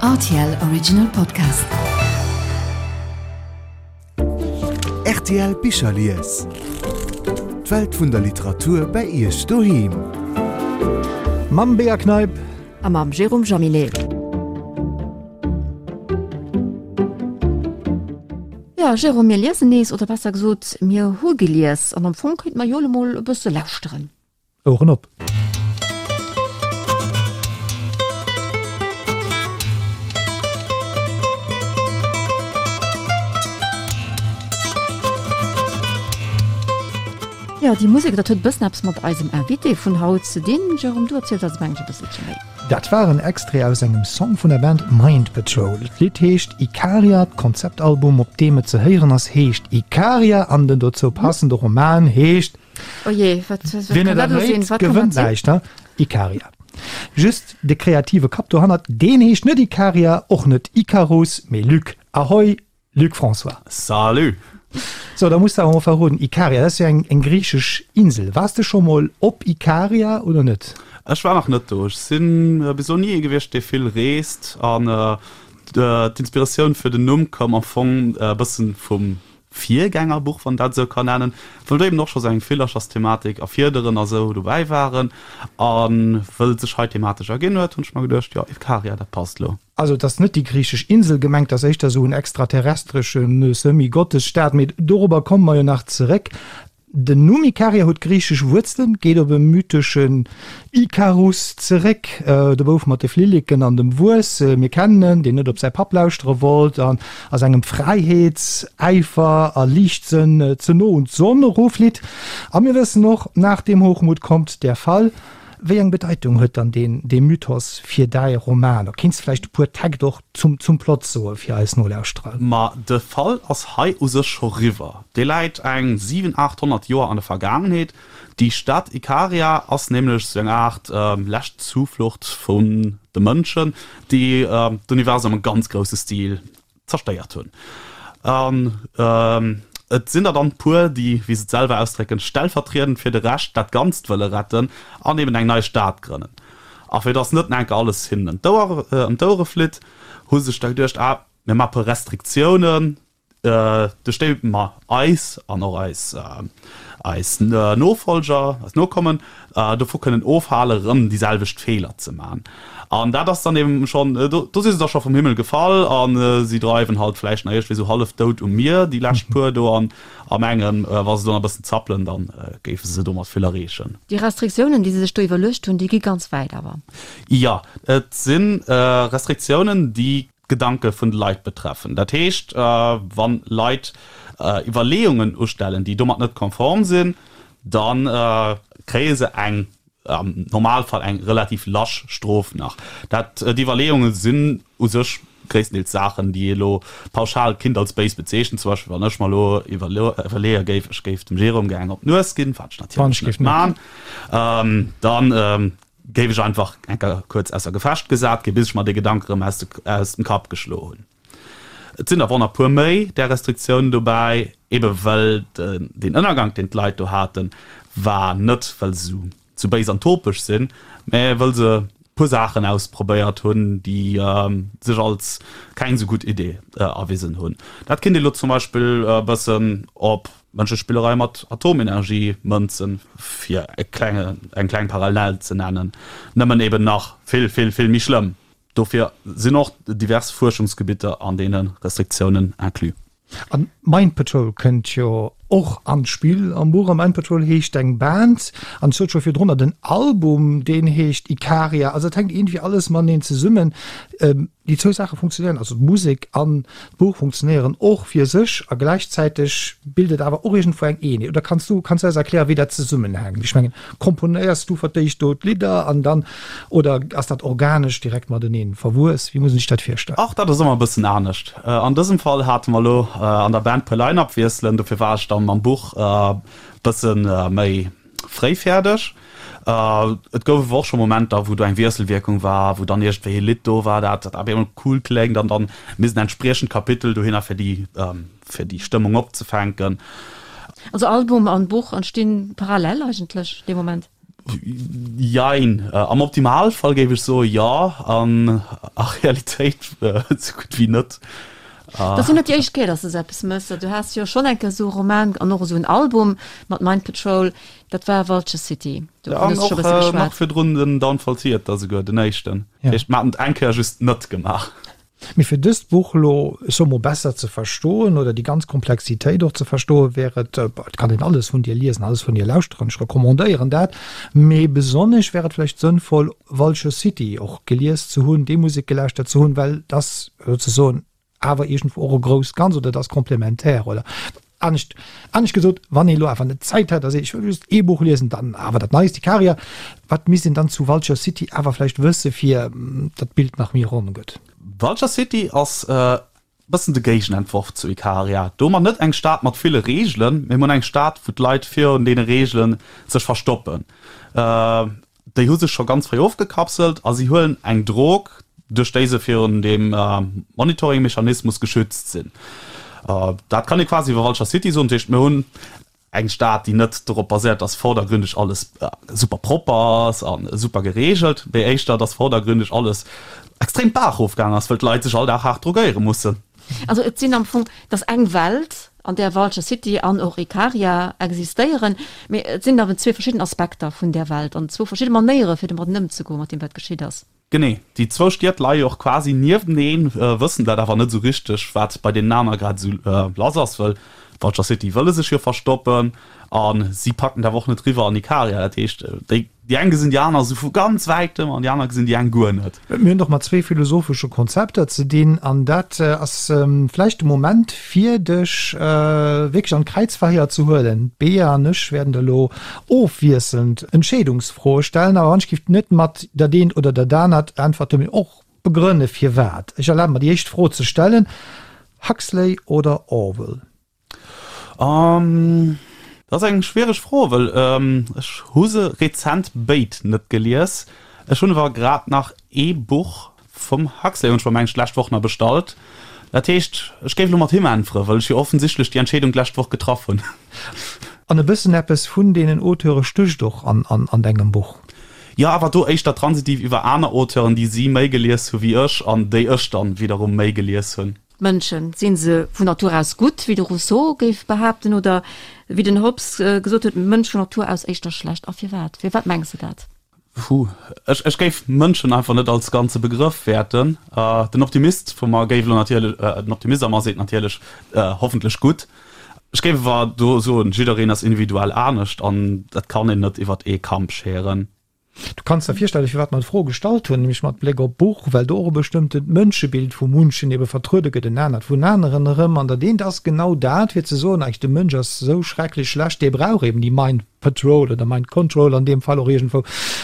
Rtl Original Podcast. Rtl Bicherlies. D'Welt vun der Literatur bei Iech doheem. Mam Bea Kneip. A mam Jérôme Jaminet. Jo, Jérôme, mir liesen nees, oder besser gesot, mir hu gelies. An am Fong kéinte mer jo elo mol e bësse lauschteren. Oueren op! Jo, déi Musek, dat huet e bëssen eppes mat eisem Invité vun haut ze dinn. Jérôme, du erziels eis mengen ech e bësselche méi. Dat war en Extrait aus engem Song vun der Band Mind Patrol. D'Lidd heescht Ikaria, d'Konzeptalbum op deem et ze héieren ass heescht Ikaria an den dozou passende Roman heescht Oh jee, wat, wat Wien kann et dat elo sinn? erréit, Wat kann gewënnt dat sinn? näischt, ne? Ikaria. Just de kreative Kapp dohannert, deen heescht net Ikaria, och net Ikarus, mee Luc. Ahoi, Luc François. Salut! So, da muss de awer mol verroden, Ikaria, dat ass jo eng, eng griichesch Insel. Waars de scho mol op Ikaria oder net? Ech war nach net do. Ech sinn bis elo ni ee gewiescht, dee vill reest. An d'Inspiratioun fir den Numm koum am Fong e bëssen vum Virgängerbuch, wann dat esou kann nennen, wou do eben och scho sou eng Villerchersthematik a Fiederen a sou dobäi waren. A wëll et sech hei thematesch erginn huet, hunn ech mer geduecht, jo, Ikaria, dat passt lo. Also et ass net déi griichesch Insel gemengt, et ass éischter esou en extraterrestresche Semi-Gottesstaat, mee dorobber komme mer jo nach zeréck. Den Numm Ikaria huet griichesch Wuerzelen, geet op e mytheschen Ikarus zeréck, de Bouf mat de Flilleken an dem Wuess, mir kennen en, deen net op säi Papp lauschtere wollt an a sengem Fräiheetsäifer a Liichtsënn ze no un d'Sonn eroflitt. A mir wëssen och, Nach dem Hochmut kommt der Fall. Wéi eng Bedeitung huet dann deen dee Mythos fir däi Roman? Kéints de vläicht e puer Täkt och zum zum Plot soe fir eis Nolauschterer? Ma de Fall ass hei u sech scho riwwer. Dee läit eng 7, 800 Joer an der Vergaangenheet. Déi Stad Ikaria ass nämlech sou eng Aart lescht Zuflucht vun de Mënschen, déi d'Universum am ganz grousse Stil zerstéiert hunn. An et sinn der dann puer, déi, wéi se et selwer ausdrécken, stellvertriedend fir de Rescht dat Ganzt wëlle retten an eben eng nei Stad grënnen. A fir datt net enke alles hinnen ëm d'Ouere flitt, hu se sech da geduecht, ah, mir maache puer Restriktiounen, duerch déi mer eis an och eis eis Nofolger, eis Nokommen dovu kënnen ofhalen, erëm déi selwecht Feeler ze maachen. An dat ass dann eben schonn, do do si se da scho vum Himmel gefall a si dreiwen halt vläicht nach iergendwéi sou hallef dout um Mier, déi lescht puer do, an a mengen, wa se do nach e bëssen zappelen, da géife se domat vill erreechen. Déi Restriktiounen, déi se sech do iwwerluecht hunn, déi gi ganz wäit awer. Jo, et si Restriktiounen, déi d'Gedanke vun de Leit betreffen. Dat heescht, wa Leit Iwwerleeungen ustellen, déi domat net konform sinn, da kréie se eng, am Normalfall eng relativ lasch Strof nach. Dat, déi Iwwerleeunge sinn u sech gréisstendeels Saachen, déi ee lo pauschal kinnt als béis bezeechnen. Zum Beispill, wann ech mer elo iwwerleeë géif, ech géif dem Jérôme gär eng op d'Nues ginn, wat ech natierlech net man, dann Géif ech einfach enker kuerz ausser Gefecht gesat ginn, bis ech mer dee Gedank erëm aus dem Kapp geschloe hunn. Et sinn awer och nach puer méi där Restriktiounen dobäi, ebe well deen Ënnergank, deen d'Leit do haten, war net well se sou béis an topeg sinn, mä wëll se puer Saachen ausprobéiert hunn, déi sech als keng sou gutt Idee erwisen hunn. Dat kinnt ee lo zum Beispill e bëssen op Mënschespillerei mat Atomenergie mënzen, fir e klenge, eng kleng Parallel ze nennen, nëmmen eben nach vill, vill, vill méi schlëmm. Dofir sinn och divers Fuerschungsgebitter an deene Restriktiounen inclus. A Mind Patrol kënnt jo och an d'Spill am Buch. A Mind Patrol heescht eng Band, an ech sot scho virdrunner, den Album, deen heescht Ikaria. Also et hänkt iergendwéi alles mateneen zesummen. Déi zwou Saache funktionéieren, also d'Musek an d'Buch funktionéieren och fir sech a gläichzäiteg bilt et awer och iergendwou eng Eenheet. Oder kanns du, kanns du eis erklären, wéi dat zesummenhänkt? Ech mengen, komponéiers du fir d'éischt do d'Lidder an dann, oder ass dat organesch direkt mateneen verwuess? Wéi muss een sech dat virstellen? Och dat ass ëmmer e bëssen anescht. An dësem Fall hate mer elo an der Band puer Line-Up-Wiesselen, dofir war ech dann mam Buch e bësse méi fréi fäerdeg. Et gouf awer och scho Momenter, wou do eng Wiesselwierkung war, wou dann iergendwéi e Lidd do war, dat dat op eemol cool kléngt an dann misst en entspriechend Kapitel dohinner, fir déi, fir déi Stëmmung opzefänken. Also Album an Buch entstinn parallel eigentlech dee Moment? Jein. Am Optimalfall géif ech soe jo, an a Realitéit esou gutt wéi net. Dat ass jo net déi éischt Kéier, dass de sou eppes méchs. Du has jo schonn eng Kéier esou e Roman an och esou en Album mat Mind Patrol, dat war Vulture City. Dovun hues du scho e bësse geschwat. An och nach virdrun den Downfall Theater, souguer den éischten. Dat heescht, mer haten et eng Kéier just net gemaach. Mee fir dëst Buch elo, ech soe mol, besser ze verstoen oder déi ganz Komplexitéit och ze verstoen, wär et, et kann een alles vun dir liesen, alles vun dir lauschteren, ech recommandéieren dat, mee besonnesch wär et vläicht sënnvoll, Vulture City och gelies ze hunn, déi Musek gelauschtert ze hunn, well et ass souzesoen awer iergendwou och e grousst Ganz oder et ass komplementär oder Anescht, anescht gesot, wann ee lo awer net Zäit hätt a seet, ech wëll just ee Buch liesen, dann awer dat Neist, Ikaria, wat misst een dann zu Vulture City awer vläicht wësse fir datt d'Bild nach méi ronn gëtt? Vulture City ass e bëssen de Géigenentworf zu Ikaria. Do hu mer net eng Stad mat ville Reegelen, mee mer hunn eng Stad, wou d'Leit virun deene Reegele sech verstoppen. Déi hu sech scho ganz fréi ofgekapselt a si huelen eng Drog, duerch déi se virun deem Monitoring-Mechanismus geschützt sinn. Dat kann ee quasi iwwer Vulture City soen. Dat heescht, mir hunn eng Stad, déi net dorop baséiert, dass vordergründeg alles super propper ass a super gereegelt, mee éischter, dass vordergründeg alles extrem d'Baach erofgaangen ass, wëll d'Leit sech all Dag haart drogéiere mussen. Also et sinn am Fong, et ass eng Welt, an där Vulture City an och Ikaria existéieren, mee et sinn awer zwee verschidden Aspekter vun där Welt an zwou verschidde Manéiere fir domadden ëmzegoen, mat deem wat geschitt ass. Genee, déi zwou Stied leie jo och quasi niefteneen, wëssen dat awer net esou richteg, wat bei deenen aner grad esou lass ass, wëll Vulture City wëlle sech jo verstoppen a si packen et awer och net riwwer an Ikaria. Dat heescht, déi Déi eng gesinn déi aner esou vu ganz wäitem an déi aner gesinn déi eng guer net. Mir hunn et och mat zwee philosophesche Konzepter ze dinn an dat ass vläicht de Moment fir dech wierklech an d'Kräizverhéier ze huelen. D'Bea an ech wäerten der elo ofwiesselnd Entscheedungsfroe stellen, awer wann ech giff net mat dat eent oder dat anert äntwerten, mee och begrënne firwat. Ech erlabe mer déi éischt Fro ze stellen, Huxley oder Orwell? Um, dat ass eng schwiereg Fro, well ech hu se rezent béid net gelies. Ech hunn awer grad nach ee Buch vum Huxley hunn ech mer mengen ech d'lescht Woch nach bestallt. Dat heescht, ech géif elo mat him äntweren, well ech jo offensichtlech déi Entscheedung d'lescht Woch getraff hunn. An e bëssen eppes vun deenen Auteure stécht och an dengem Buch. Jo, awer do éischter transitiv iwwer aner Auteuren, déi si méi gelies hu wéi ech an déi ech dann widderum méi gelies hunn. D'Mënschen, sinn se vun Natur aus gutt, wéi de Rousseau géif behaapten, oder wéi den Hobbes gesot huet, Mënsch vun Natur aus éischter schlecht? A firwat? Firwat mengs de dat? Puh, ech, ech géif Mënschen einfach net als ganze Begrëff wäerten. Den Optimist vu mer géif elo natierlech, den Optimist a mer seet natierlech, hoffentlech gutt. Ech géif awer do soen, jiddereen ass individuell anescht an dat kann een net iwwert ee Kamp scheren. Du kanns der virstellen, firwat mer d'Fro gestallt hunn, nämlech mat Bléck op d'Buch, well do och e bestëmmtent Mënschebild vu munchen ebe vertruede gëtt, en anert vun aneren erëm. An dat eent ass genau dat, fir ze soen, eigentlech de Mënsch ass esou schrecklech schlecht, dee brauch eben déi Mind Patrol oder Mind Control an deem Fall och iergendwou,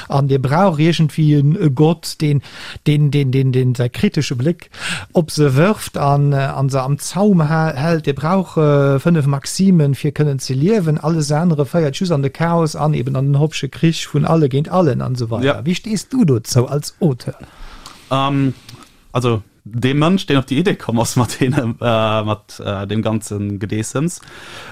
an dee brauch iergendwéi e Gott, deen, deen, deen, deen, deen säi kritesche Bléck Op se wërft an an se am Zaum hält. Dir brauch 5 Maximen fir kënnen ze liewen, alles anere féiert just an de Chaos an eben an den Hobbesche Krich vun alle géint allen an esou weider. Wéi stees du dozou als Auteur? Also dee Mënsch deen op déi Idee komm ass mat deene mat deem ganze Gedeessems,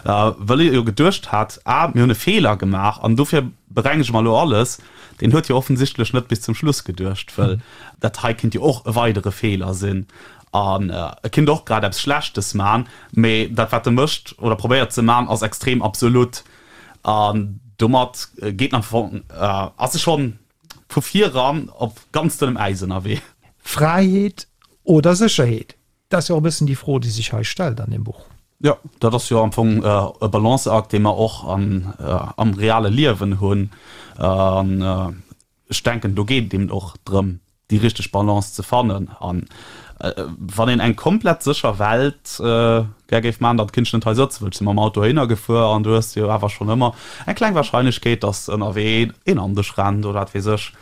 wëll e jo geduecht hat, ah mir hunn e Feeler gemaach an dofir berengege mer elo alles, Deen huet jo offensichtlech net bis zum Schluss geduecht, wëll dat hei kinnt jo och e weidere Feeler sinn an e kinnt och grad eppes Schlechtes man, mee dat wat e mécht oder probéiert ze man ass extrem absolut an domat geet en am Fong, ass e schonn vu viran op ganz dënnem Äis ënnerwee. Fräiheet oder Sécherheet? Dat ass jo och e bëssen déi Fro, déi sech hei stellt an deem Buch. Jo, dat ass jo am Fong e Balanceakt, dee mer och am reale Liewen hunn. An ech denken, do geet et eben och drëm, déi richteg Balance ze fannen. An wann een eng komplett sécher Welt gär géif maachen, dann kinnt ech net hei sëtzen, well ech si mam Auto heihinner gefuer an du hues jo awer schonn ëmmer eng kleng Warscheinlechkeet, dass ënnerwee een an dech rennt oder wat weess ech.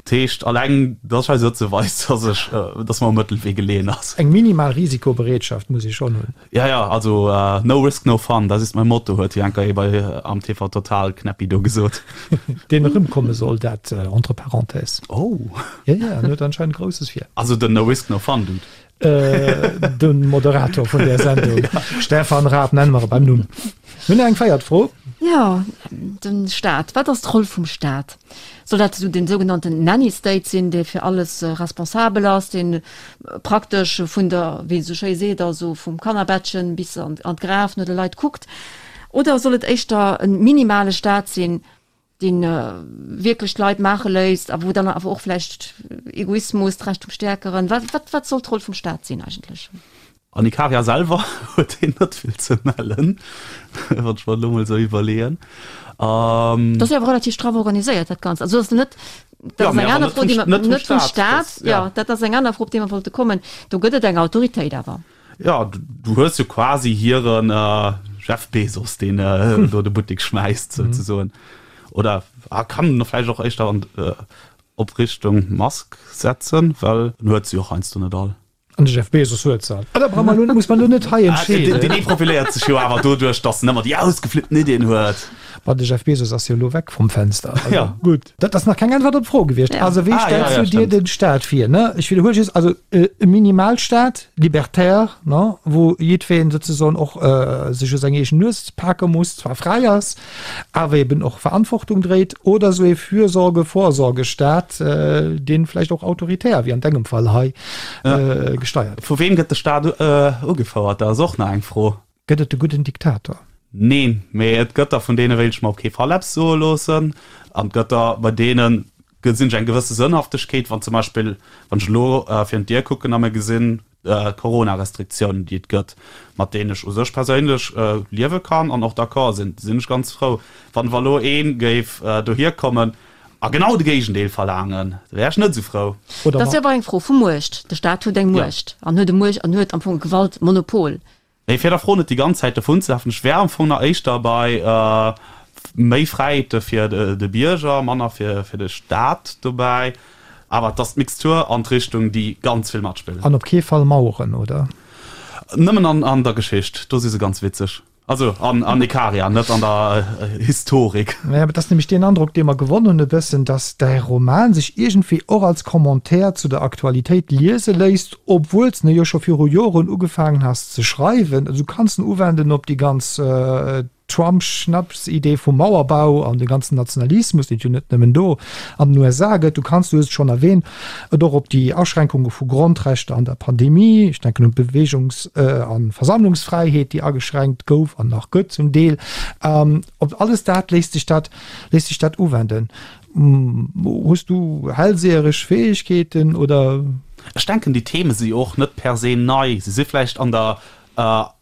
Dat heescht, alleng dass ech hei sëtze weist, dass ech, dass mer um Mëttelwee geleeën ass. Eng minimal Risikobereetschaft muss ee schonn hunn. Ja, ja, also no risk, no fun, das ist mein Motto, huet jo enker ee bei am TV Total Knäppi do gesot. Deen erëmkomme soll, dat entre parenthèses. Oh. Ja, ja, en huet anscheinend Grousses vir. Also den No risk, no fun Dude. De Moderator vun där Sendung, Stefan Raab, nenne mer e beim Numm. Mir hunn nach eng véiert Fro. Jo, de Staat. Wat ass d'Roll vum Staat? Soll dat esou den sougenannten Nanny State sinn, dee fir alles responsabel ass, dee praktesch vun der, wéi een esou schéi seet, also vum Kannerbettchen bis an d'Graf no de Leit kuckt? Oder soll et éischter e minimale Staat sinn, dee wierklech d'Leit maache léisst a wou dann awer och vläicht Egoismus, d'Recht vum Stäerkeren, wat, wat, wat soll d'Roll vum Staat sinn eigentlech? An Ikaria selwer huet een net vill ze mellen, wann ech mer elo mol esou iwwerleeën. Dat ass jo awer relativ straff organiséiert, dat Ganzt. Also ass net, dat ass eng aner Fro, déi mer, net vum Staat, jo, dat ass eng aner Fro, op déi mer wollte kommen. Do gëtt et eng Autoritéit awer. Jo, du hues jo quasi hiren Jeff Bezos, deen do de Buttek schmäisst, souzesoen. Oder kann en vläicht och éischter an op Richtung Musk setzen, well en huet se jo och heiansdo net all. An de Jeff Bezos huet se all. Ah, da brauch mer elo, muss mer elo net hei entscheeden. Deen ee profiléiert sech jo awer doduerch, datt en ëmmer déi ausgeflippten Iddien huet. Ma de Jeff Bezos ass jo elo weg vum Fenster. Also, ja. Gutt. Dat ass nach keng Äntwert op d'Fro gewiescht. Ja. Also wéi ah, stellst ja, ja, du dir den Staat vir? Ne? Ech wiederhuele just, also äh, e Minimalstaat, libertär, ne? wou jiddwereen sozusagen och äh, sech u seng eegen Nues pake muss, zwar fräi ass, awer eben och Verantwortung dréit, oder esou ee Fürsorge-Vorsorgestaat, äh, deen vläicht och autoritär, wéi an dengem Fall hei, äh, gesteiert gëtt. Vu weem gëtt de Staat ugefouert? Dat ass och nach eng Fro. Gëtt et de gudden Diktator? Neen, mee et gëtt der, vun deene wéilt ech mer op kee Fall eppes soe loossen. An et gëtt der, bei deene gesinn ech eng gewësse Sënnhaftegkeet, wann zum Beispill, wann ech elo virun d'Dier kucken a mir gesinn d'Corona-Restriktiounen, déi et gëtt, mat deenen ech u sech perséinlech liewe kann an och d'accord sinn, sinn ech ganz frou. Wann awer elo ee géif dohier kommen a genau de Géigendeel verlaangen, da wär ech net esou frou. Dat ass jo awer eng Fro vu Muecht. De Staat huet eng Muecht an huet e Muecht an huet am Fong e Gewaltmonopol. Mee fir der Fro net déi ganz Zäit dovunzelafen, ech wär am Fong nach éischter bei méi Fräiheete fir de Bierger, manner fir de Staat dobäi. Awer et ass d'Mixtur an d'Richtung, déi ganz vill matspillt. An op kee Fall Maueren, oder? Nëmmen an der Geschicht, do si se ganz witzeg. Also an Ikaria, net an der Historik. Naja, et ass nämlech deen Androck, dee mer gewonn hunn e bëssen, datt däi Roman sech iergendwéi och als Commentaire zu der Aktualitéit liese léisst, obwuel s de jo scho viru Joren ugefaangen has ze schreiwen. Also du kanns en uwenden op déi ganz Trump-Schnapsidee vum Mauerbau an de ganzen Nationalismus, deen et jo net nëmmen do an den USA gëtt. Du kanns, du hues et schonn erwähnt, et och op déi Aschränkunge vu Grondrechter an der Pandemie, ech denken un d'Beweegungs a Versammlungsfräiheet, déi ageschränkt gouf an nach gëtt zum Deel. Op alles dat léisst sech dat, léisst sech dat uwenden. Hues du hellseheresch Fäegkeeten oder? Ech denken, déi Theme si jo och net per se nei. Se si vläicht an der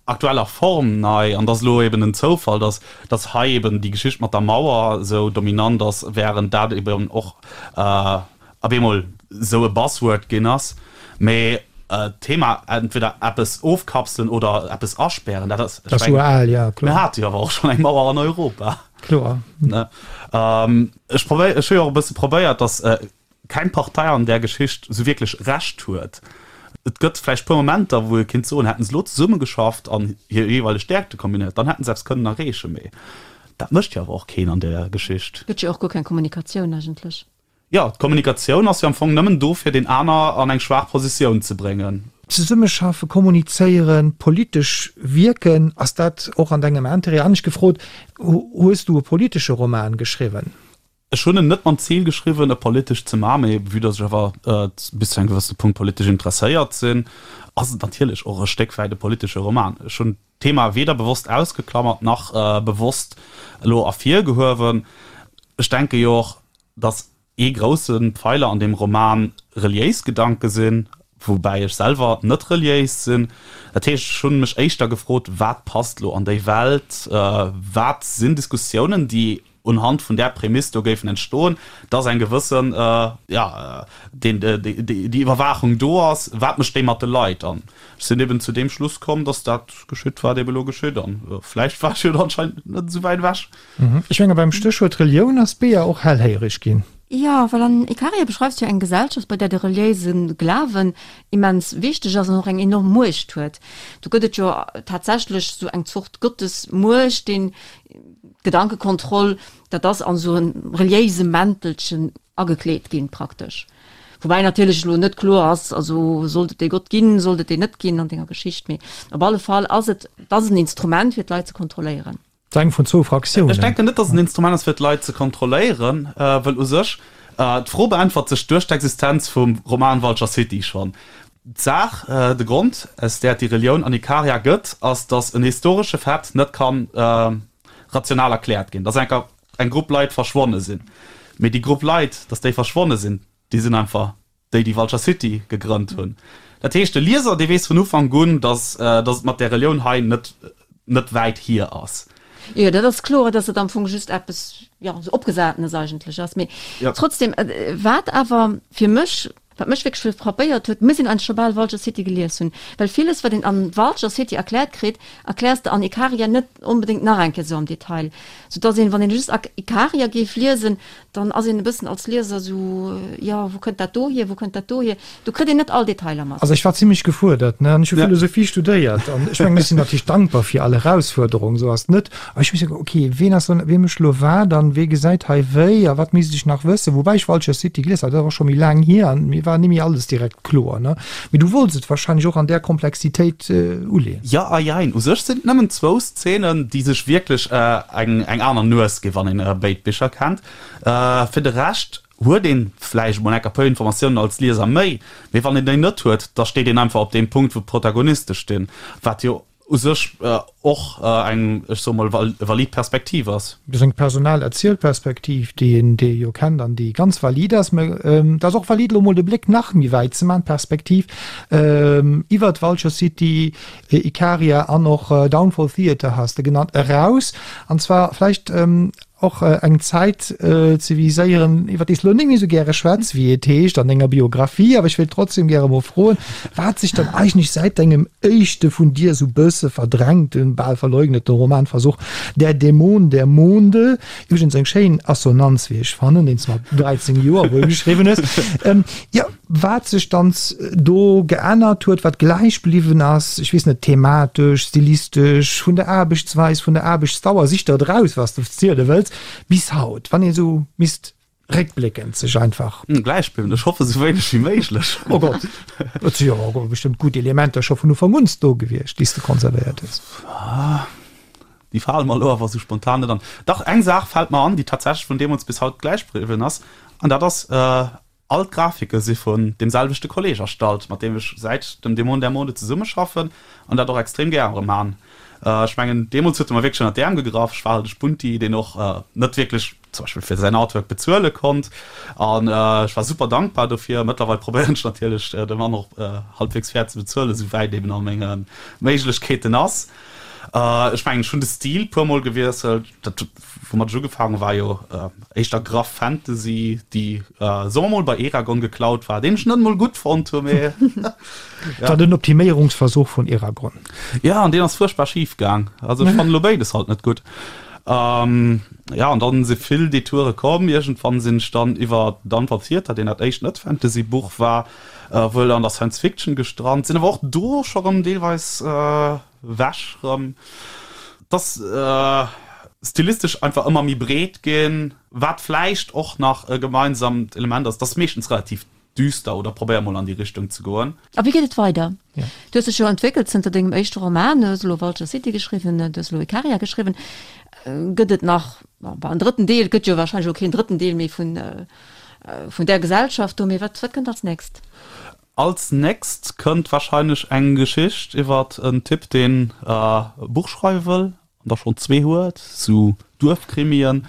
aktueller Form nei an et ass elo eben en Zoufall, dass dass hei eben déi Geschicht mat der Mauer esou dominant ass, während dat eben och op eemol esou e Buzzword ginn ass. Mee d'Thema entweder eppes ofkapselen oder eppes aspären, dat ass, ech mengen, mir hate jo awer och schonn eng Mauer an Europa. Kloer. Ech probéier, ech hu jo och e bësse probéiert, dass keng Partei an där Geschicht esou wierklech Recht huet. Et gëtt vläicht puer Momenter, wou ee kéint soen, hätten se elo zesummegeschafft an hir jeeweileg Stäerkte kombinéiert, dann hätten se eppes kënnen erreechen. Mee dat mécht jo awer och keen an där Geschicht. Gëtt jo och guer keng Kommunikatioun eigentlech. Jo, d'Kommunikatioun ass jo am Fong nëmmen do, fir deen aner an eng schwaach Positioun ze bréngen. Zesummeschaffe, kommunizéieren, politesch wierken, ass dat och an dengem Interêt? Anescht gefrot, Hues du e politesche Roman geschriwwen? Ech hunn en net mam Zil geschriwwen, e politesch ze maachen, mee vue dass ech awer bis zu engem gewëssene Punkt politesch interesséiert sinn, ass et natierlech och e Stéck wäit e politesche Roman. Ech hunn d'Thema weder bewosst ausgeklammert nach bewosst elo ervirgehuewen. Ech denke jo och, dass ee grousse Pfeiler an deem Roman reliéis Gedanke sinn, woubäi ech selwer net reliéis sinn. Dat heescht, ech hunn mech éischter gefrot, wat passt elo an déi Welt, wat sinn Diskussiounen, déi unhand vun där Prämiss do géifen entstoen, dass eng gewëssen, jo, deen, déi Iwwerwaachung do ass, wat mécht déi mat de Leit? An ech sinn eben zu deem Schluss komm, dass dat geschitt, wat eben elo geschitt. An vläicht war ech jo anscheinend net esou wäit ewech. Ech menge beim Stéchwuert Relioun ass d'Bea och hellhéiereg ginn. Jo, well an Ikaria beschreifs du jo eng Gesellschaft, bei där de reliéise Glawen immens wichteg ass an och eng enorm Muecht huet. Do gëtt et jo tatsächlech esou eng Zort Gottesmuecht, deen D'Gedankekontroll, dat ass an esou e reliéise Mäntelchen agekleet ginn, praktesch. Woubäi natierlech elo net kloer ass, also sollt et dee Gott ginn, sollt et deen net ginn an denger Geschicht. Mee op alle Fall ass et, et ass en Instrument fir d'Leit ze kontrolléieren. Et ass eng vun zwou Fraktiounen. Ech denken net, datt et en Instrument ass, fir d'Leit ze kontrolléieren, wëll u sech d'Fro beäntwert sech duerch d'Existenz vum Roman Vulture City schonn. D'Saach, de Grond, aus där et déi Relioun an Ikaria gëtt, ass, datt en historesche Fait net ka rational erkläert ginn, datt enker eng Grupp Leit verschwonne sinn. Mee déi Grupp Leit, datt déi verschwonne sinn, déi sinn einfach déi déi Vulture City gegrënnt hunn. Dat heescht, de Lieser, dee weess vun Ufank un, datt datt et mat där Relioun hei net net wäit hier ass. Jo, dat ass kloer, datt et am Fong just eppes, jo, esou Opgesatenes eigentlech ass. Mee trotzdem, wat awer fir mech, wat mech wierklech frappéiert huet, muss een eigentlech scho bal Vulture City gelies hunn, well villes, wat een an Vulture City erkläert kritt, erkläers de an Ikaria net onbedéngt nach eng Kéier esou am Detail, soudatt een, wann een just Ikaria géif liesen, Dann ass een e bëssen als Lieser esou, jo, wou kënnt dat do hier, wou kënnt dat do hier? Do kritt een net all Detailer mat. Also ech war zimlech gefuerdert, ne, an ech hu Philosophie studéiert an ech mengen, ech sinn natierlech dankbar fir all Erausfuerderung, esou ass et net. Awer ech hu misse ok, ween ass dann, wee mécht elo wat an wee gesäit hei wéi a wat misst ech nach wëssen? Woubäi ech Vulture City gelies hat, dat ass och scho méi laang hier an mir war nimmi alles direkt kloer, ne. Mee du wollts et wahrscheinlech och an där Komplexitéit uleeën. Jo a jein. U sech sinn et nëmmen zwou Szenen, déi sech wierklech eng aner Nues ginn, wann een béid Bicher kennt. Fir de Rescht huet een vläicht emol enker puer Informatiounen als Lieser méi, mee wann een déi net huet, da steet een einfach op deem Punkt, wou d'Protagoniste stinn, wat jo u sech och eng, ech soe mol, valid Perspektiv ass. Dat ass eng personal Erzielperspektiv, déi een, déi ee jo kennt an déi ganz valid ass. Mä et ass och valid, elo mol de Bléck nach méi wäit ze maachen, d'Perspektiv iwwert Vulture City, Ikaria an och Downfall Theatre has de genannt, eraus. An zwar vläicht och eng Zäit ze viséieren, iwwer déi s elo net méi esou gäre schwätz, wéi et heescht an denger Biografie. Awer ech wéilt trotzdem gäre mol froen, wat sech dann eigentlech säit dengem éischte vun dir esou bësse verdrängten, bal verleugneten Romanversuch Der Dämon der Monde, iwwregens eng schéin Assonanz, wéi ech fannen, deen s de mat 13 Joer wuel geschriwwen hues, jo, Wat sech dann do geännert huet, wat gläich bliwwen ass, ech weess net, thematesch, stilistesch, vun der Aarbechtsweis, vun der Aarbechtsdauer, sich der et eraus, wat s de ziele wëlls, bis haut, wann ee sou misst réckbléckend sech einfach. Gläich bliwwen, ech hoffe sou wéineg wéi méiglech. Oh Gott, et si jo awer bestëmmt gutt Elementer scho vun Ufank un do gewiescht, déi s de konservéiert hues. Déi fale mer elo awer sou spontan net an. Dach, eng Saach fält mer an, déi tatsächlech vun deemools bis haut gläich bliwwen ass, an dat ass, All d'Grafike si vun deem selwechte Kolleg erstallt, mat deem ech säit dem Dämon der Mode zesummeschaffen an dat och extrem gäre man. Ech mengen, deemools huet e mer wierklech ënner d'Äerm gegraff. Ech war halt e Spunti, deen och net wierklech zum Beispill fir säin Artwork bezuele konnt an ech war super dankbar dofir. Mëttlerweil probéieren ech natierlech, de Mann och halbwegs fair ze bezuelen, esou wäit eben a menge Méiglechkeeten ass. Ech mengen, ech hunn de Stil puermol gewiesselt. Dat, woumat ech ugefaangen war jo éischter graff Fantasy, déi, soe mer mol, bei Eragon geklaut war, deen ech net emol gutt fonnt hu, mee ja. War den Optiméierungsversuch vun Eragon. Ja, an deen ass fuerchtbar schif gaang. Also ech fannen elo béides halt net gutt. Ja, an dann si vill Detoure komm. Iergendwann sinn ech dann iwwer Downfall Theater, deen dat éischt Net-Fantasy-Buch war, wuel an der Science Fiction gestrant, sinn awer och do scho rëm deelweis wech rëm. Et ass stilistesch einfach ëmmer méi breet ginn, wat vläicht och nach e gemeinsamt Element ass, et ass meeschtens relativ düster oder probéier mol an déi Richtung ze goen. A wéi geet et weider? Du hues dech jo entwéckelt zënter dengem éischte Roman, du hues elo Vulture City geschriwwen, du hues elo Ikaria geschriwwen. Gëtt et nach, bon, en drëtten Deel? Et gëtt jo warscheinlech elo keen drëtten Deel méi vun vun där Gesellschaft do, mee wat wat kënnt als nächst? Als nächst kënnt wahrscheinlech eng Geschicht iwwert en Typ deen e Buch schreiwe wëll an der schonn zwee huet, sou Duerfkrimien,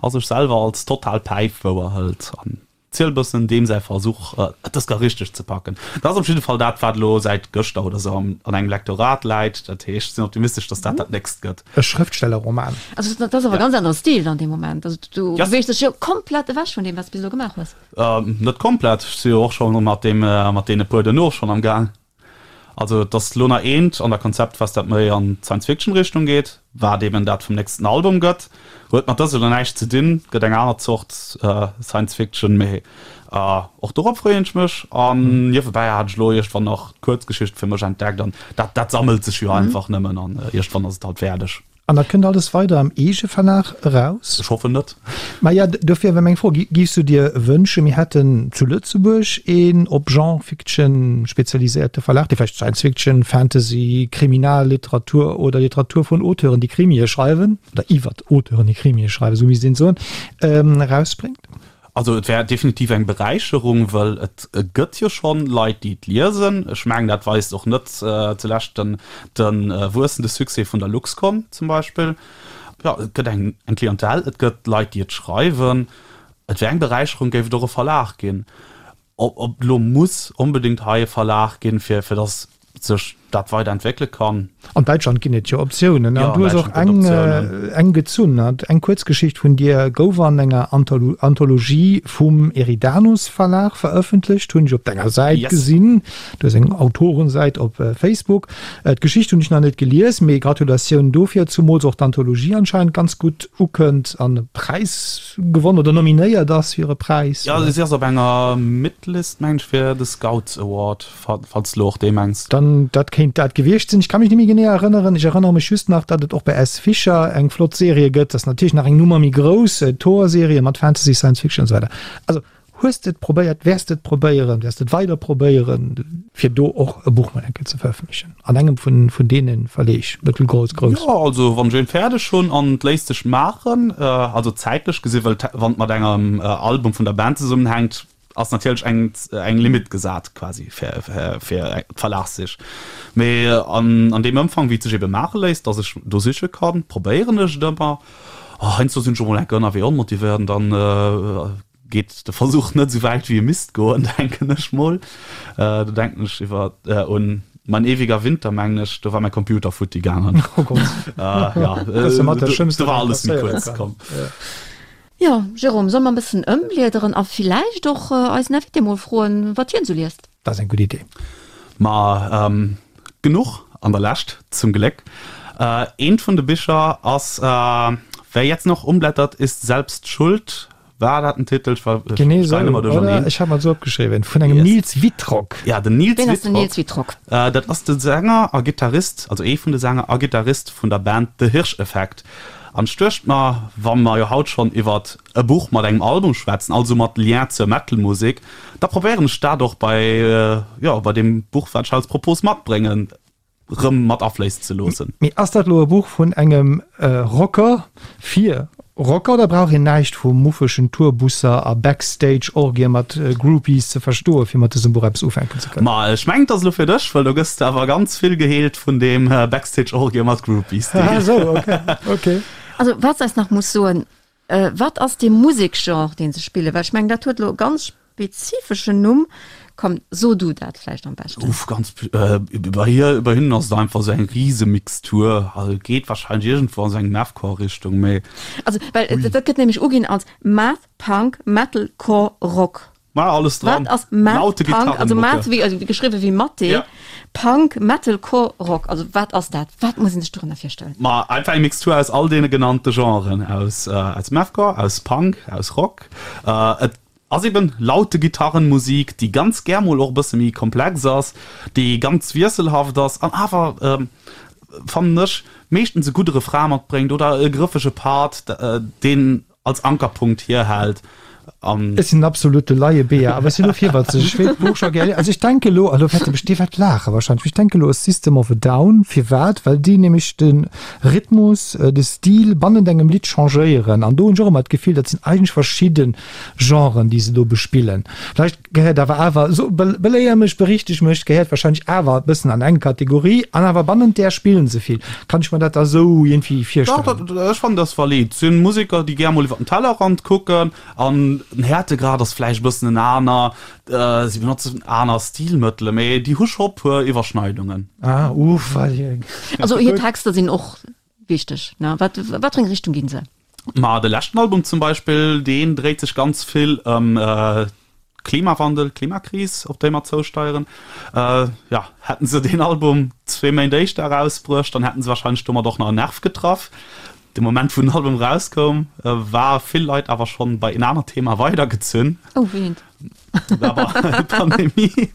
a sech selwer als total Päif wouer hëlt an ziel bëssen deem säi Versuch et dës gar richteg ze packen. Dat ass op jidde Fall dat wat elo säit gëschter oder sou an engem Lektorat läit. Dat heescht ech sinn optimistesch datt dat dat nächst gëtt. E Schrëftstellerroman. Also dat ass awer e ganz anere Stil dann dee Moment. Also du beweegst dech jo komplett ewech vun deem wat s de bis elo gemaach hues. Net komplett, ech si jo och scho mat deem, mat deene puer duerno schonn am Gaang. Also et ass elo nach eent an der Konzeptphas, dat méi an d'Science-Fiction-Richtung geet, wat eben dat vum nächsten Album gëtt. Huet mat dësem elo näischt ze dinn, gëtt eng aner Zort Science-Fiction, mee och dorop freeën ech mech. An niewebäi hat ech elo iergendwann nach d'Kuerzgeschicht fir mech entdeckt an dat, dat sammelt sech jo einfach nëmmen an iergendwann ass et halt fäerdeg. An dat kënnt alles weider am Eegeverlag eraus? Ech hoffen net. Maja, dofir war meng Fro, Giffs du dir wënschen, mir hätten zu Lëtzebuerg een op Genre Fiction spezialiséierte Verlag, dee vläicht Science Fiction, Fantasy, Kriminalliteratur oder Literatur vun Auteuren, déi Krimie schreiwen, oder iwwert Auteuren, déi Krimie schreiwen, esou misst een soen, erausbréngt? Also et wär definitiv eng Beräicherung, well et gëtt jo schonn Leit, déi et liesen. Ech mengen, dat weist och net zulescht den de wuessende Succès vun der Luxcon zum Beispill. Jo, et gëtt eng eng Clientèle, et gëtt Leit, déi et schreiwen. Et wär eng Beräicherung, géif et och e Verlag ginn. Ob et elo muss onbedéngt hei e Verlag ginn, fir fir datt sech dat weider entwéckele kann. An Däitschland ginn et jo Optiounen an du hues och eng eng gezunn. Eng Kuerzgeschicht vun dir gouf an enger Anthologie vum Eridanus Verlag verëffentlecht, hunn ech op denger Säit gesinn. Du hues eng Autorensäit op Facebook. D'Geschicht hunn ech nach net gelies, mee Gratulatioun dofir, zumools och d'Anthologie anscheinend ganz gutt ukënnt an e Präis gewonn oder nominéiert ass fir e Präis. Jo, si ass op enger Midlist, mengen ech, fir de Scouts Award. Falls de lo och dee mengs. Dann, dat kéint dat gewiescht sinn. Ech ka mech net méi genee erënneren. Ech erënnere mech just nach, datt et och bei S. Fischer eng flott Serie gëtt. Dat ass natierlech nach eng Nummer méi grouss, Thor-Serie mat Fantasy, Science Fiction an esou weider. Also, hues de et probéiert? Wäers de et probéieren? Wäers de et weider probéieren, fir do och e Buch mol eng Kéier ze verëffentlechen an engem vun, vun deene Verleeg, mëttel, grouss, grouss? Jo, also wann ech een fäerdeg hunn an et léisst sech maachen, also zäitlech gesi, well wann et mat engem Album vun der Band zesummenhänkt, ass natierlech eng eng Limite gesat quasi fir fir d'Verlagssich. Mee an an deem Ëmfang wéi et sech ebe maache léisst, datt ech do siche kann, probéieren ech et ëmmer. Heiansdo sinn ech och mol enke ënnerwee onmotivéiert an dann geet de Versuch net esou wäit wéi e misst goen, denken ech mol. Do denken ech iwwer un Mein ewiger Winter, mengen ech, do war mäi Computer futti gaangen. Oh Gott. Jo, do war alles méi kuerz komm. Jo, Jérôme, solle mer e bëssen ëmbliederen a villäicht och eisen Invité mol froen, wat hien esou liest? Dat ass eng gutt Idee. Ma genuch an der Lescht, zum Gléck. Eent vun de Bicher ass Wer jetzt noch umblättert, ist selbst schuld. War dat den Titel? Ech war, Genee esou, oder? Ech hat mer et esou opgeschriwwen. Vun engem Nils Wittrock. Ja, den Nils Wien ass den Nils Wittrock? Dat ass de Sänger a Gittarist, also ee vun de Sänger a Gittarist vun der Band The Hirscheffekt. An ech duecht mer, wa mer jo haut schonn iwwert e Buch mat engem Album schwätzen, also mat Lien zur Metal-Musek, da probéieren ech dat och bei, jo, bei deem Buch, wat ech als Propos matbréngen, rëm mat afléissen ze loossen. Mee ass dat elo e Buch vun engem Rocker fir Rocker oder brauch een näischt vu muffegen Tourbusser a Backstage-Orgien mat Groupies ze verstoen, fir mat dësem Buch eppes ufänken ze kënnen? Ma ech mengen, et ass elo fir dech, well do gëss de awer ganz vill geheelt vun deem Backstage-Orgie mat Groupies-Deel. Ah esou, ok, ok. Also wat s eis nach muss soen, wat ass dee Musekgenre, deen se spillen? Well ech mengen, dat huet elo e ganz spezifeschen Numm. Komm, so du dat vläicht am beschten. Uff, ganz, bei hir, bei hinnen ass et einfach esou eng Risemixtur. Also et geet wahrscheinlech iergendwou an esou eng Mathcore-Richtung, mee. Also, well dat gëtt nämlech uginn als Math Punk Metalcore Rock. War alles dran. Wat ass Math Punk? Also Math wéi, also geschriwwe wéi Mathé, ja. Punk, Metalcore, Rock. Also wat ass dat? Wat muss een sech dorënner virstellen? Ma einfach eng Mixtur aus all deene genannte Genren, aus, aus Mathcore, aus Punk, aus Rock. Et ass eben laute Gitarrenmusik, déi ganz gär mol och e bësse méi komplex ass, déi ganz wiesselhaft ass an awer, fannen ech, meeschtens e gudde Refrain matbréngt oder e grëffege Part, deen als Ankerpunkt hierhält an. Ech sinn en absolute Laie-Bea, awer ech sinn elo virwëtzeg. Ech wéilt d'Buch scho gär liesen. Also ech denke elo, a lo wäerte mech déi wäert laache wahrscheinlech, mee ech denke elo u System of a Down. Firwat? Well déi nämlech de Rhythmus, de Stil bannent engem Lidd changéieren. An do hunn ech och ëmmer d'Gefill, dat sinn eigentlech verschidde Genren, déi se do bespillen. Vläicht Gehéiert awer awer, so, beléier mech, berichteg mech, gehéiert wahrscheinlech awer e bëssen an eng Kategorie an awer bannent där spillen se vill. Kann ech mer dat da sou iergendwéi virstellen? Dach, dat, ech fannen dat ass valid. Et sinn Museker, déi gär mol iwwer den Tellerrand kucken an den Härtegrad ass vläicht e bëssen en aner, si benotzen aner Stilmëttele, mee déi hu scho puer Iwwerschneidungen. Ah, uff, Also hir Texter sinn och wichteg, ne? Wat, wat fir eng Richtung ginn se? Ma de leschten Album zum Beispill, deen dréit sech ganz vill ëm Klimawandel, Klimakris, op déi mer zousteieren. Jo, hätten se deen Album zwee Méint éischter erausbruecht, dann hätten se warscheinlech domat och nach en Nerv getraff. De Moment, wou den Album erauskoum, war vill Leit awer schonn bei en anert Thema weidergezunn. Oh, wéi eent? Pandemie.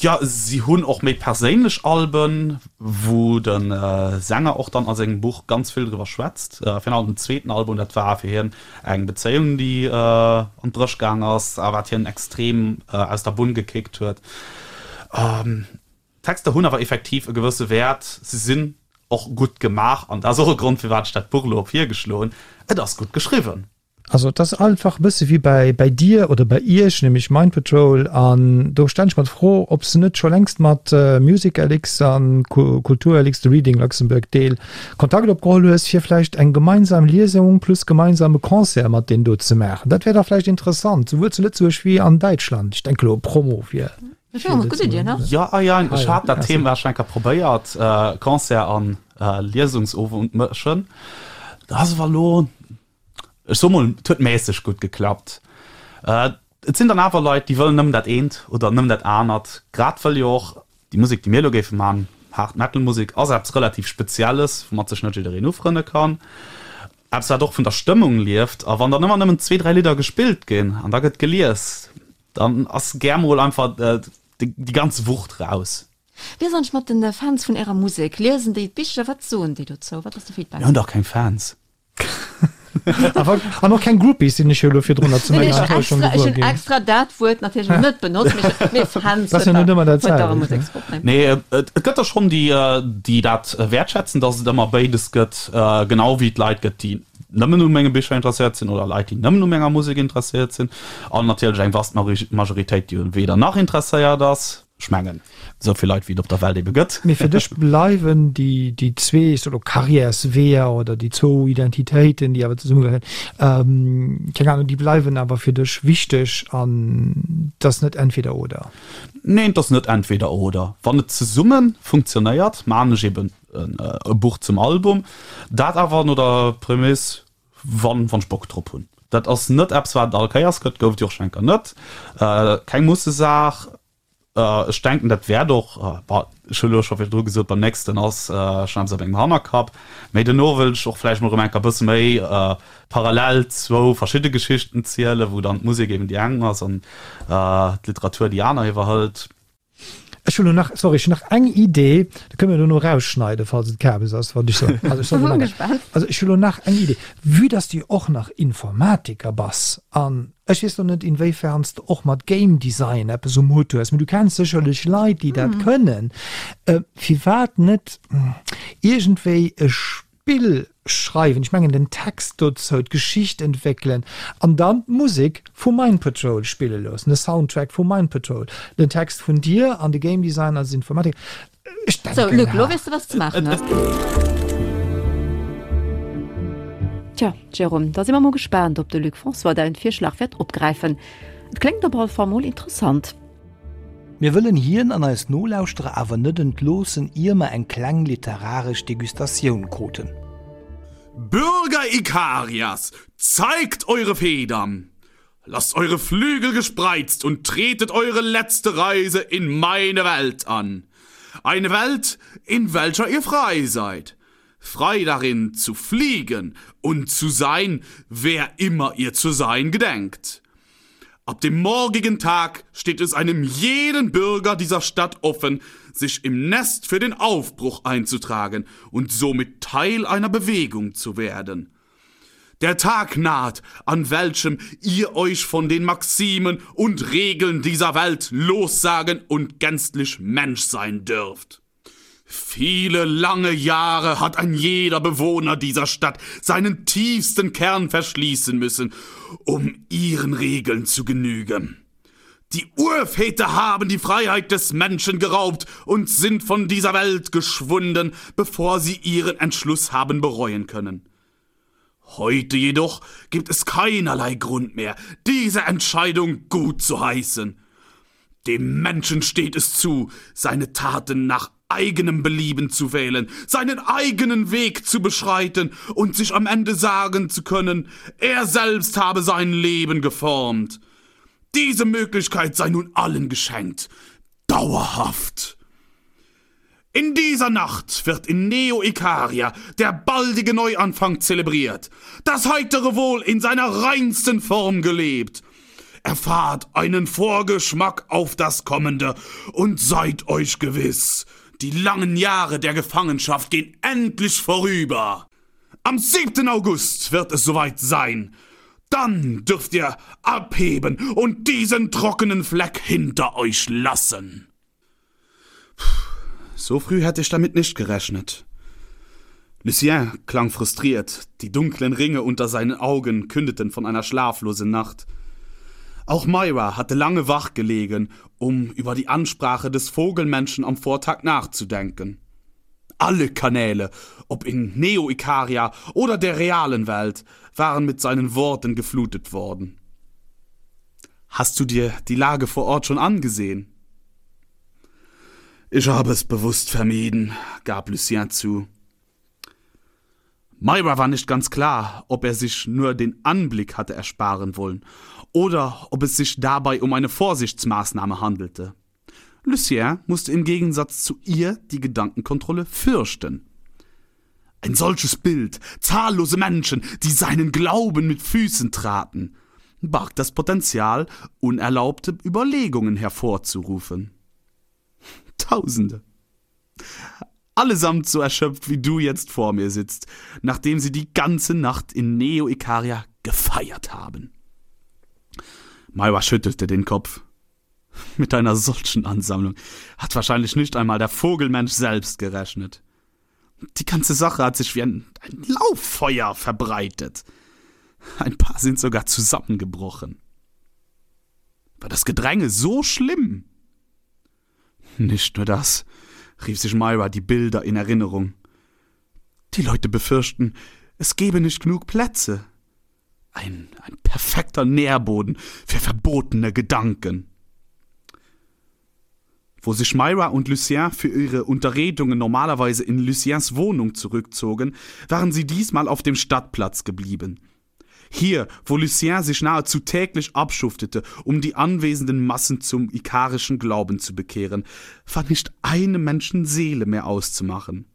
Jo, si hunn och méi perséinlech Alben, wou de Sänger och dann a sengem Buch ganz vill driwwer schwätzt. Virun allem den zweeten Album, dat war fir hien eng Bezéiung, déi an d'Bréch gaang ass a wat hien extrem aus der Bunn gekickt huet. D'Texter hunn awer effektiv e gewësse Wäert, si sinn och gutt gemaach an dat ass och e Grond, firwat ech dat Buch elo op virgeschloen hunn, Et ass gutt geschriwwen. Also et ass einfach e bësse wéi bäi bäi dir oder bäi iech, nämlech Mind Patrol. An do stellen ech mer d'Fro, ob s de net scho längst mat MusicLX an KulturLX, de Reading Luxembourg Deel, Kontakt opgeholl hues, fir vläicht eng gemeinsam Liesung plus gemeinsame Concert mat deenen do ze maachen. Dat wär dach vläicht interessant, souwuel zu Lëtzebuerg wéi an Däitschland. Ech denke elo Promo fir. Jo, ah jo, ech hat dat Thema schon eng Kéier probéiert, Concert an Liesungsowend mëschen. Dat ass awer elo, ech soe mol, et huet mässeg gutt geklappt. Et sinn dann awer Leit, déi wëllen nëmmen dat eent oder nëmmen dat anert, grad wëll jo och déi Musek, déi mir elo géife man, Hard Metal Musek, ass eppes relativ Spezielles, woumat sech net jiddereen ufrënne kann, eppes wat och vun der Stëmmung lieft. A wann dann ëmmer nëmmen zwee, dräi Lidder gespillt ginn an da gëtt gelies, Dann ass gär mol einfach déi ganz Wucht raus. Wéi ass eigentlech mat den Fans vun ärer Musek? Liesen déi d'Bicher? Wat soen déi dozou? Wat ass de Feedback? Mir hunn dach keng Fans. An och keng Groupies, sinn ech jo elo virdrunner zu menger Enttäuschung gewuer ginn. Ech hunn extra dat Wuert natierlech net benotzt, mee Fans huet dach e Museksgrupp, nee? Nee, et gëtt der schonn, déi dat wäertschätzen, datt et ëmmer béides gëtt, genau wéi et Leit gëtt, déi nëmmen u menge Bicher interesséiert sinn oder Leit, déi nëmmen u menger Musek interesséiert sinn an natierlech eng vast Majoritéit, déi u weder nach interesséiert ass. Ech mengen, esou vill Leit, wéi et op der Welt ebe gëtt. Mee fir dech bleiwen déi, déi zwee, ech soe lo Karriärsweeër oder déi zwou Identitéiten, déi awer zesummegehéieren, keng Ahnung, déi bleiwen awer fir dech wichteg an et ass net entweder oder? Neen, et ass net entweder oder. Wann et zesumme funktionéiert, maachen ech eben e Buch zum Album, dat awer no der Prämiss, wann wann ech Bock drop hunn. Dat ass net eppes wat et all Kéiers gëtt, gouf et jo och schonn eng Kéier net, keng Mussesaach. Ech denken dat wäert och, bah ech hu lo scho virdru gesot, beim nächsten ass schonn eppes a mengem Hannerkapp, mee dono wëll ech och vläicht mol erëm eng Kéier e bësse méi parallel zwou verschidde Geschichten zielen, wou dann d'Musek eben déi eng ass an d'Literatur déi aner iwwerhëlt. Ech hunn elo nach, sorry, ech hunn nach eng Idee, dat kënne mir dono erausschneiden, falls et Kabes ass, wat ech soen. Also ech soen elo nach, also ech hunn elo nach eng Idee, vue dass du jo och nach Informatiker bass an ech weess elo net, inwéifern s de och mat Game Design eppes um Hutt hues, mee du kenns sécherlech Leit, déi dat kënnen, firwat net iergendwéi e Spill schreiwen, ech mengen den Text dozou, d'Geschicht entwéckelen an dann d'Musek vu Mind Patrol spille loossen, de Soundtrack vu Mind Patrol, den Text vun dir an de Game Design als Informatiker. Ech denken. Sou Luc, lo weess de wat s de maachen hues. Tja, Jérôme, da si mer mol gespaant, ob de Luc François däin Virschlag wäert opgräifen. Et kléngt op alle Fall mol interessant. Mir wëllen hien an eis Nolauschterer awer net entloossen, ier mer eng kleng literaresch Degustatioun kruten. Bürger Ikarias, zeigt eure Federn! Lasst eure Flügel gespreizt und tretet eure letzte Reise in meine Welt an. Eine Welt, in welcher ihr frei seid. Frei darin zu fliegen und zu sein, wer immer ihr zu sein gedenkt. Ab dem morgigen Tag steht es einem jeden Bürger dieser Stadt offen, sich im Nest für den Aufbruch einzutragen und somit Teil einer Bewegung zu werden. Der Tag naht, an welchem ihr euch von den Maximen und Regeln dieser Welt lossagen und gänzlich Mensch sein dürft. Viele lange Jahre hat ein jeder Bewohner dieser Stadt seinen tiefsten Kern verschließen müssen, um ihren Regeln zu genügen. Die Urväter haben die Freiheit des Menschen geraubt und sind von dieser Welt geschwunden, bevor sie ihren Entschluss haben bereuen können. Heute jedoch gibt es keinerlei Grund mehr, diese Entscheidung gut zu heißen. Dem Menschen steht es zu, seine Taten nach eigenem Belieben zu wählen, seinen eigenen Weg zu beschreiten und sich am Ende sagen zu können, er selbst habe sein Leben geformt. Diese Möglichkeit sei nun allen geschenkt, dauerhaft. In dieser Nacht wird in Neo Ikaria der baldige Neuanfang zelebriert, das heitere Wohl in seiner reinsten Form gelebt. Erfahrt einen Vorgeschmack auf das Kommende und seid euch gewiss, die langen Jahre der Gefangenschaft gehen endlich vorüber. Am 7. August wird es soweit sein. Dann dürft ihr abheben und diesen trockenen Fleck hinter euch lassen. So früh hätte ich damit nicht gerechnet. Lucien klang frustriert, die dunklen Ringe unter seinen Augen kündeten von einer schlaflosen Nacht. Auch Myra hatte lange wach gelegen, um über die Ansprache des Vogelmenschen am Vortag nachzudenken. Alle Kanäle, ob in Neo-Ikaria oder der realen Welt, waren mit seinen Worten geflutet worden. Hast du dir die Lage vor Ort schon angesehen? Ich habe es bewusst vermieden, gab Lucien zu. Myra war nicht ganz klar, ob er sich nur den Anblick hatte ersparen wollen oder ob es sich dabei um eine Vorsichtsmaßnahme handelte. Lucien musste im Gegensatz zu ihr die Gedankenkontrolle fürchten. Ein solches Bild, zahllose Menschen, die seinen Glauben mit Füßen traten, barg das Potenzial, unerlaubte Überlegungen hervorzurufen. Tausende. Allesamt so erschöpft, wie du jetzt vor mir sitzt, nachdem sie die ganze Nacht in Neo-Ikaria gefeiert haben. Myra schüttelte den Kopf. Mit einer solchen Ansammlung hat wahrscheinlich nicht einmal der Vogelmensch selbst gerechnet. Die ganze Sache hat sich wie ein, ein Lauffeuer verbreitet. Ein paar sind sogar zusammengebrochen. War das Gedränge so schlimm? Nicht nur das, rief sich Myra die Bilder in Erinnerung. Die Leute befürchten, es gebe nicht genug Plätze. Ein, ein perfekter Nährboden für verbotene Gedanken. Wo sich Myra und Lucien für ihre Unterredungen normalerweise in Luciens Wohnung zurückzogen, waren sie diesmal auf dem Stadtplatz geblieben. Hier, wo Lucien sich nahezu täglich abschuftete, um die anwesenden Massen zum ikarischen Glauben zu bekehren, war nicht eine Menschenseele mehr auszumachen.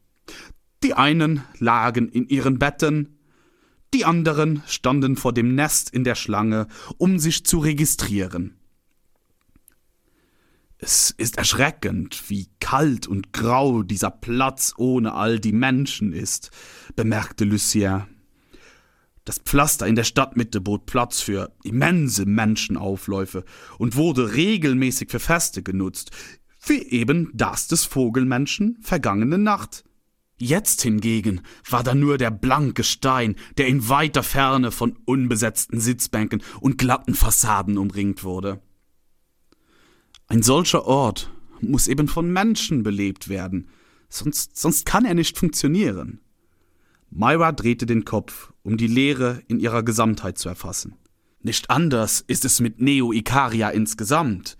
Die einen lagen in ihren Betten, die anderen standen vor dem Nest in der Schlange, um sich zu registrieren. Es ist erschreckend, wie kalt und grau dieser Platz ohne all die Menschen ist, bemerkte Lucien. Das Pflaster in der Stadtmitte bot Platz für immense Menschenaufläufe und wurde regelmäßig für Feste genutzt, wie eben das des Vogelmenschen vergangene Nacht. Jetzt hingegen war da nur der blanke Stein, der in weiter Ferne von unbesetzten Sitzbänken und glatten Fassaden umringt wurde. Ein solcher Ort muss eben von Menschen belebt werden, sonst, sonst kann er nicht funktionieren. Myra drehte den Kopf, um die Leere in ihrer Gesamtheit zu erfassen. Nicht anders ist es mit Neo-Ikaria insgesamt.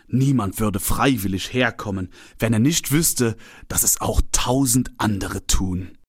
Niemand würde freiwillig herkommen, wenn er nicht wüsste, dass es auch tausend andere tun.